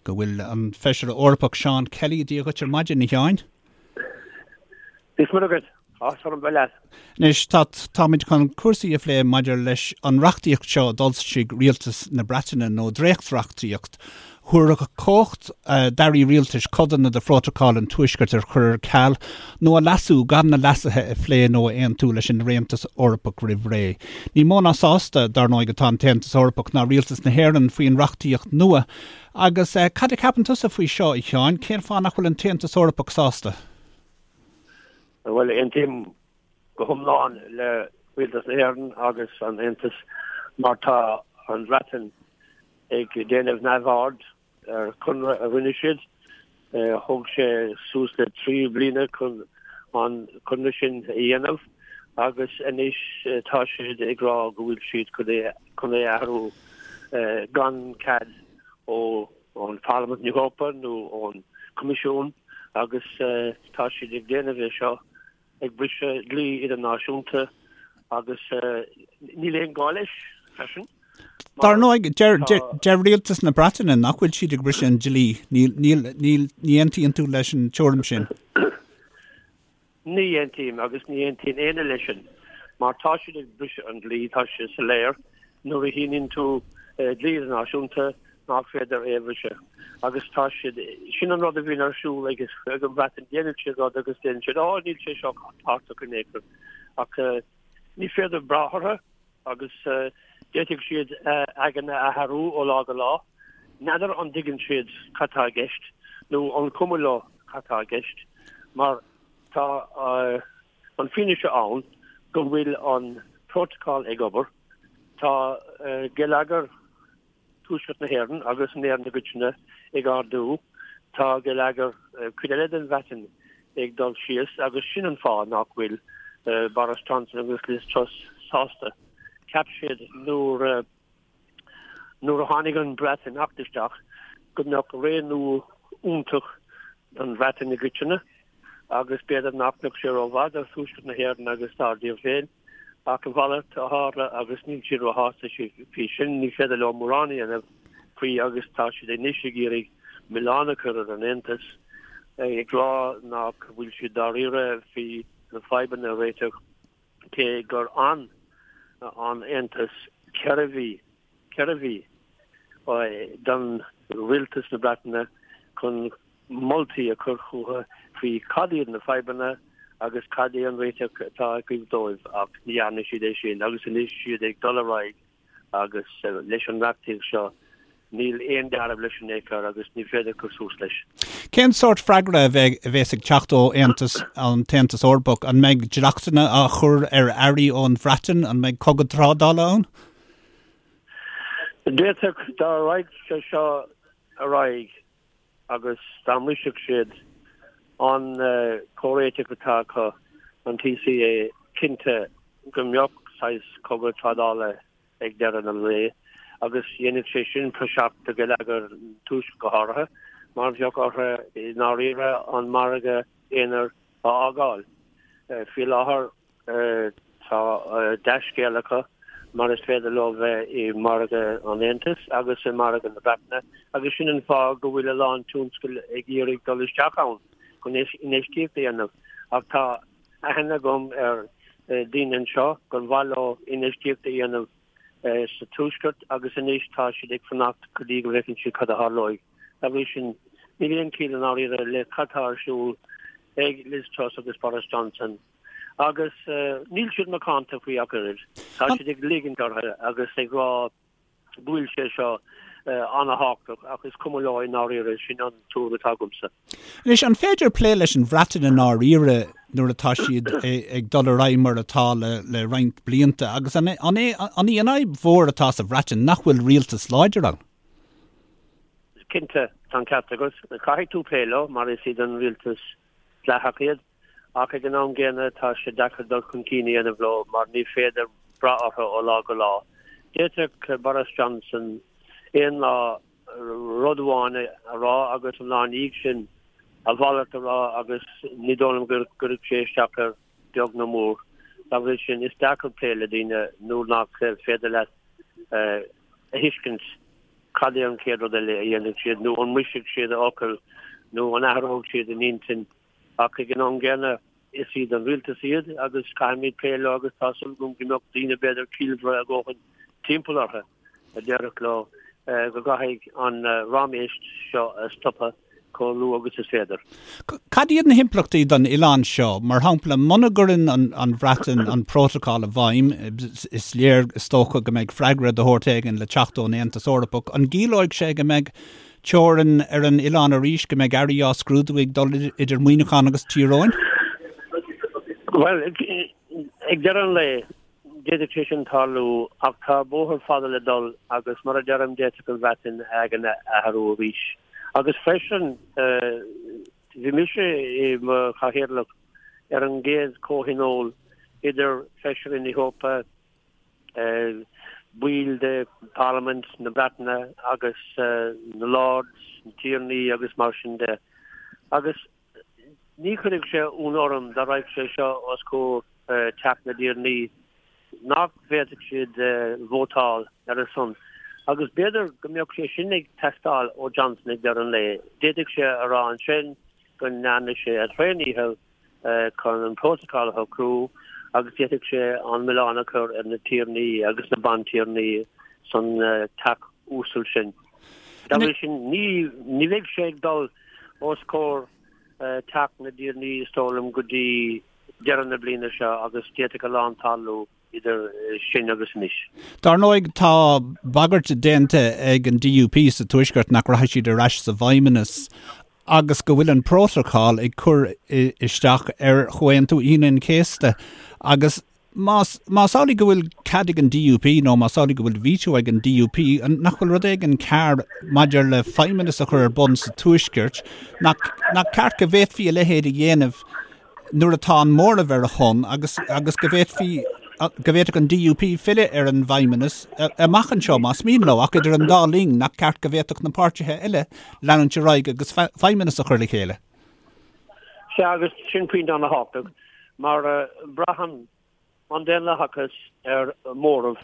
Go bhfuil an Feisire Eorpach Seán Kelly, Dia dhuit ar maidin, a Sheáin. Dia is Muire dhuit. Áthas orm bheith leat. Anois, tá, táimid chun cúrsaí a phlé maidir leis an reachtaíocht seo a d'fhoilsigh Rialtas na Breataine, nó dréachtreachtaíocht, thabharfadh cumhacht d'airí rialtais codanna de Phrótacal an Tuaiscirt a chur ar ceal nó a leasú gan na leasuithe a phlé nó a aontú leis an Aontas Eorpach roimh ré. Ní mó ná sásta, dar ndóigh, atá an tAontas Eorpach ná Rialtas na hÉireann faoin reachtaíocht nua. Agus cad a cheapann tusa faoi seo, a Sheáin? Cén fáth nach bhfuil an tAontas Eorpach sásta? Bhuel, aontaím go hiomlán le Rialtas na hÉireann agus an Aontas mar tá an Bhreatain ag déanamh neamhaird ar chonradh a rinne siad. Thóg sé suas le 3 bliana chun an conradh sin a dhéanamh agus anois tá siad ag rá go bhfuil siad chun é a athrú gan cead ó ón Pharlaimint na hEorpa nó ón Coimisiún agus tá siad ag déanamh é seo ag briseadh dlí idirnáisiúnta agus níl aon gá leis freisin. Dar ndóigh, deir rialtas na Breataine nach bhfuil siad ag briseadh an dlí. Níl, ní aontaíonn tú leis an tuairim sin? Ní aontaím agus ní aontaíonn éinne leis sin mar tá siad ag briseadh an dlí, tá sé soiléir nuair a shíníonn tú dlí idirnáisiúnta nach féidir é a bhriseadh agus tá siad, sin an rud a bhíonn ar siúl ag an Bhreatain, déanann siad rud agus déanann siad, á níl sé seo tábhachtach in aon chor ach ní féidir brath orthu agus d'fhéadfadh siad a n-aigne a athrú ó lá go lá. N'fheadar an dtuigeann siad cad tá i gceist nó an cuma leo cad tá i gceist mar tá an fianaise ann go bhfuil an prótacal ag obair, tá geilleagar Tuaisceart na hÉireann agus in Éirinn i gcoitinne ag ardú. Tá geilleagar cuid eile den Bhreatain ag dul síos agus sin an fáth nach bhfuil Boris Johnson agus Liz Truss sásta. Cheap siad nuair nuair a tháinig an Breatimeacht isteach go mbeadh ré nua iontach don Bhreatain i gcoitinne agus b'fhéidir nach mbeadh sé rómhaith do Thuaisceart na hÉireann agus dár dtír féin. Ach a mhalairt a tharla agus níl siad róshásta faoi sin, ní féidir leo mórán a dhéanamh faoi agus tá siad anois ag iarraidh milleán a chur ar an Aontas, ag rá nach bhfuil siad dáiríre faoi na fadhbanna a réiteach, cé gur fhan an Aontas 4 mhí, 4 mhí, don rialtas na Breataine chun moltaí a chur chucu faoi cad iad na fadhbanna agus cad é an réiteach atá acu dóibh ach ní dhearna siad é sin agus anois siad ag dul ar aghaidh agus leis an reachtaíocht seo níl aon dealramh leis in aon chor agus ní féidir cur suas leis. Cén sórt freagra a bheas ag teacht ó Aontas, an tAontas Eorpach? An mbeidh dleachtanna á chur ar earraí ón Bhreatain? An mbeidh cogadh trádála ann? D'fhéadfadh dá raghadh sé seo ar aghaidh agus dá mbrisfeadh siad an comhréiteach atá acu, an TCA, cinnte go mbeadh saghas cogadh trádála ag deireadh an lae agus dhéanfadh sé sin praiseach do gheilleagar an Tuaiscirt go háirithe mar bheadh orthu i ndáiríre an margadh aonair a fhágáil. Faoi láthair Tá dea-scéal acu mar is féidir leo bheith i margadh an Aontais agus i margadh na Breataine agus sin an fáth go bhfuil a lán tionscal ag iarraidh dul isteach ann chun infheistíocht a dhéanamh. Ach tá aithne agam ar daoine anseo gur mhaith leo infheistíocht a dhéanamh sa Tuaisceart agus anois tá siad ag fanacht go dtí go bhfeiceann siad cad a tharlóidh. Dá bhrí sin, níl aon chiall i ndáiríre le cad tá ar siúl ag Liz Truss agus Boris Johnson. Agus níl siad macánta faoi ach oiread. Tá siad ag ligint orthu agus ag rá go bhfuil sé seo an-thábhachtach ach is cuma leo i ndáiríre, sin an tuairim atá agamsa. Anois, an féidir plé leis an Bhreatain i ndáiríre nuair atá siad ag dul ar aghaidh mar atá le roinnt blianta agus an í an fhadhb mhór atá sa Bhreatain nach bhfuil rialtas láidir ann? Cinnte, tá an ceart agat. Caithfidh tú plé leo mar is iad an rialtas dleathach iad. Ach ag an am gcéanna tá sé deacair dul chun cinn a dhéanamh leo mar ní féidir brath orthu ó lá go lá. D'fhéadfadh Boris Johnson aon lá rud amháin a rá agus an lá ina dhiaidh sin a mhalairt a rá agus ní dóigh liom go gcuirfeadh sé isteach air beag nó mór. Dá bhrí sin is deacair plé le daoine nuair nach féidir leat a thuiscint. Cad é an chéad rud eile a dhéanfaidh siad nó an mbrisfidh siad a fhocal nó an athróidh siad a n-intinn ach ag an am gcéanna is iad an rialtas iad agus caithfimid plé leo agus tá súil agam go mbeadh daoine b'fhéidir ciallmhara a dhóthain timpeall orthu a déarfadh leo go gcaithfidh an raiméis seo a stopadh chomh luath agus is féidir. Cad iad na himpleachtaí don oileán seo? Mar shampla, muna gcuireann an Bhreatain an prótacal i bhfeidhm, is léir, is dócha, go mbeidh freagra de shórt éigin le teacht ón Aontas Eorpach. An gciallóidh sé go mbeidh teorainn ar an oileán arís, go mbeidh earraí á scrúdú ag dul idir Muineachán agus Tír Eoghain? Bhuel, ag deireadh an lae, D'fhéadfadh sé sin tarlú, ach tá bóthar fada le dul agus mar a deirim, d'fhéadfadh an Bhreatain a aigne a athrú arís. Agus freisin, bhí mise i mo chathaoirleach ar an gcéad chomhthionól idir Feisirí na hEorpa, baill de Pharlaimint na Breataine agus na Lords, na Tiarnaí agus mar sin de. Agus Ní chuirfeadh sé ionadh orm dá raghadh sé seo os comhair Teach na dTiarnaí nach bhféadfadh siad vótáil ar a son. Agus b'fhéidir go mbeadh sé sin ag teastáil ó Johnson ag deireadh an lae. D'fhéadfadh sé a rá ansin go ndearna sé a thréandícheall chun an prótacal a shocrú agus d'fhéadfadh sé an milleán a chur ar na tiarnaí agus na bantiarnaí san teach uasal sin. Dá bhrí sin ní bheidh sé ag dul os comhair Teach na dTiarnaí, is dóigh liom, go dtí deireadh na bliana seo agus d'fhéadfadh a lán tarlú idir sin agus anois. Dar ndóigh, tá bagairt déanta ag an DUP sa Tuaisceart nach rachaidh siad ar ais sa bhFeidhmeannas agus go bhfuil an prótacal ag cur isteach ar Chomhaontú Aoine an Chéasta agus Más, más amhlaidh go bhfuil cead ag an DUP nó más amhlaidh go bhfuil veto ag an DUP, nach bhfuil rud éigin cearr maidir le feidhmeannas a chur ar bun sa Tuaisceart, nach, nach ceart go bhféadfaí a leithéid a dhéanamh nuair atá an móramh ar a shon agus, agus go bhféadfaí, go bhféadfadh an DUP filleadh ar an bhfeidhmeannas amach anseo más mian leo, ach idir an dá linn, nach ceart go bhféadfadh na páirtithe eile leanúint ar aghaidh agus feidhmeannas a chur le chéile? Sea, agus sin pointe an-thábhachtach, mar braitheann an daonlathachas ar mhóramh.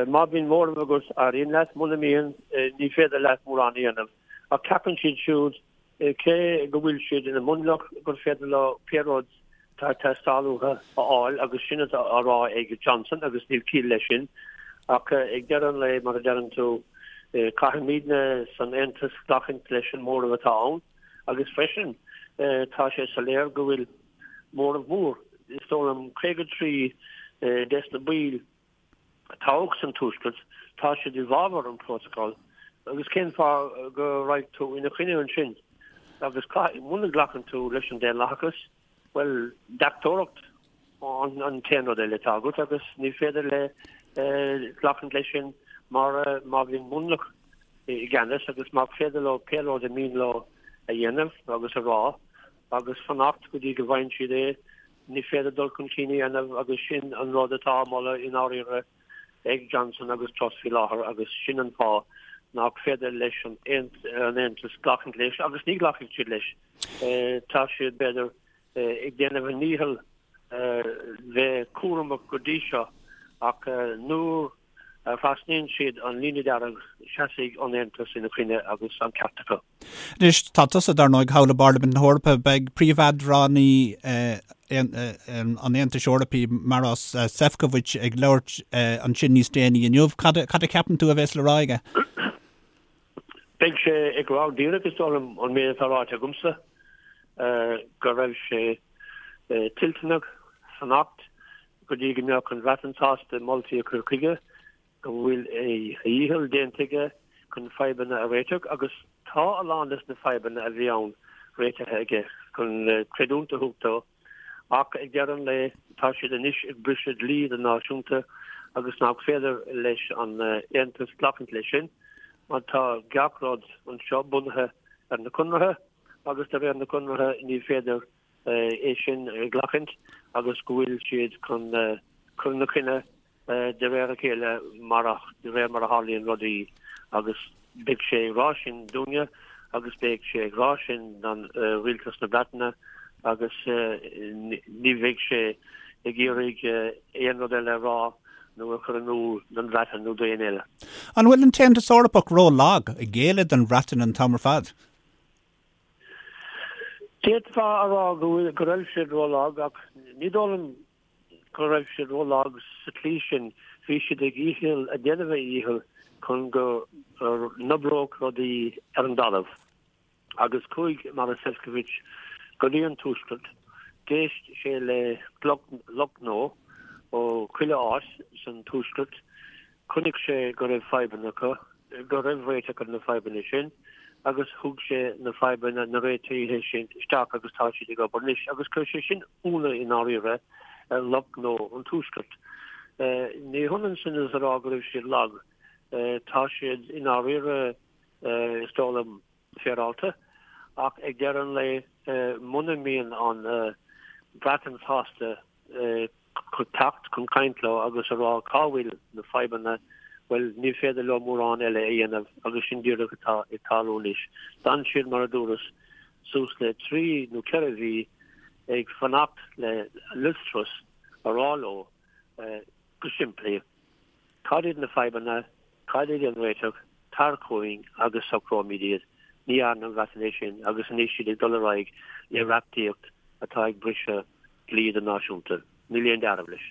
Má bhíonn móramh agat, éiríonn leat, muna mbíonn, ní féidir leat mórán a dhéanamh. Ach ceapann siad siúd, cé go bhfuil siad ina mionlach, gur féidir leo pé rud atá ag teastáil uathu a fháil, agus sin atá á rá ag Johnson, agus níl ciall leis sin. Ach ag deireadh an lae, mar a deireann tú, caithfimidne san Aontas glacaint leis an móramh atá ann. Agus freisin, tá sé soiléir go bhfuil móramh mór, is dóigh liom 53 des na baill a toghadh san Tuaisceart, tá siad i bhfabhar an prótacal agus cén fáth go raghaidh tú ina choinne ansin? Agus muna nglacann tú leis an daonlathachas, bhuel, deachtóireacht an t-aon rud eile atá agat agus ní féidir le glacaint leis sin mar má bhíonn mionlach i gceannas agus má féidir leo pé rud a mian leo a dhéanamh agus a rá agus fanacht go dtí go bhfaigheann siad é, ní féidir dul chun cinn a dhéanamh agus sin an rud atá á mholadh i ndáiríre ag Johnson agus Truss faoi láthair agus sin an fáth nach féidir leis an Aontas glacaint leis agus ní ghlacfaidh siad leis. Tá siad, b'fhéidir, ag déanamh a ndícheall bheith cúramach go dtí seo ach nuair a thrasnaíonn siad an líne dearg, seasfaidh an Aontas ina choinne agus an ceart acu. Anois, tá tusa, dar ndóigh, thall i bParlaimint na hEorpa. Beidh príomheadránaí an Aontais Eorpaigh, Maros Sefcovic, ag labhairt ansin níos déanaí inniu. Cad a cheapann tú a bheas le rá aige? Beidh sé ag rá díreach, is dóigh liom, an méid atá ráite agamsa, go raibh sé toilteanach fanacht go dtí go mbeadh an Bhreatain sásta moltaí a chur chuige, go bhfuil a dhícheall déanta aige chun fadhbanna a réiteach agus tá a lán des na fadhbanna a bhí ann réitithe aige, chun creidiúint a thabhairt dó. Ach ag deireadh an lae, tá siad anois ag briseadh dlí idirnáisiúnta agus nach féidir leis an Aontas glacaint leis sin mar tá gach rud anseo bunaithe ar na conartha agus de réir na conartha ní féidir é sin a ghlacaint agus go bhfuil siad chun cur ina choinne de réir a chéile mar de réir mar a tharlaíonn rudaí agus beidh sé ag rá sin dúinne agus beidh sé ag rá sin don rialtas na Breataine agus ní bheidh sé ag iarraidh aon rud eile a rá. nó a chur in iúl don Bhreatain nó d'éinne eile. An bhfuil an tAontas Eorpach ró-lag, ag géilleadh don Bhreatain an t-am ar fad? D'fhéadfá a rá go bhfuil, go raibh siad ró-lag ach ní dóigh liom go raibh siad ró-lag sa tslí sin. Bhí siad ag dhícheall, ag déanamh a dhícheall chun go n-oibreodh rudaí ar an dtalamh. Agus chuaigh Maros Sefcovic go dtí an Tuaisceart, d'éist sé le lucht gnó ó chuile áit san Tuaisceart, chonaic sé go raibh fadhbanna acu, go raibh réiteach ar na fadhbanna sin agus thug sé na fadhbanna, na réitithe sin isteach agus tá siad ag obair anois. Agus chuir sé sin ionadh i ndáiríre ar lucht gnó an Tuaiscirt. Ní hionann sin is a rá go raibh siad lag. Tá siad i ndáiríre, is dóigh liom, féaráilte, ach ag deireadh an lae, muna mbíonn an Bhreatain sásta teacht chun caint leo agus a rá cá bhfuil na fadhbanna, bhuel, ní féidir leo mórán eile a dhéanamh agus sin díreach atá ag tarlú anois. D'fhan siad, mar a dúras, suas le trí nó ceithre mhí ag fanacht le Liz Truss a rá leo go simplí, cad iad na fadhbanna, Cad é an réiteach? Tar chugainn agus socróimid iad. Ní dhearna an Bhreatain é sin agus anois siad ag dul ar aghaidh le reachtaíocht atá ag briseadh dlí idirnáisiúnta. Níl aon dealramh leis.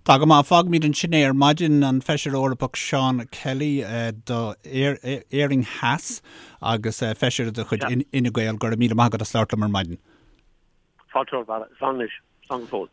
Tá go maith. Fágfaimid ansin é ar maidin. An Feisire Eorpach Seán Kelly do Éirinn Theas agus Feisire de chuid Fhine Gael, go raibh míle maith agat as labhairt liom ar maidin. Fáilte romhat, a Bharra. Slán anois. Slán go fóill.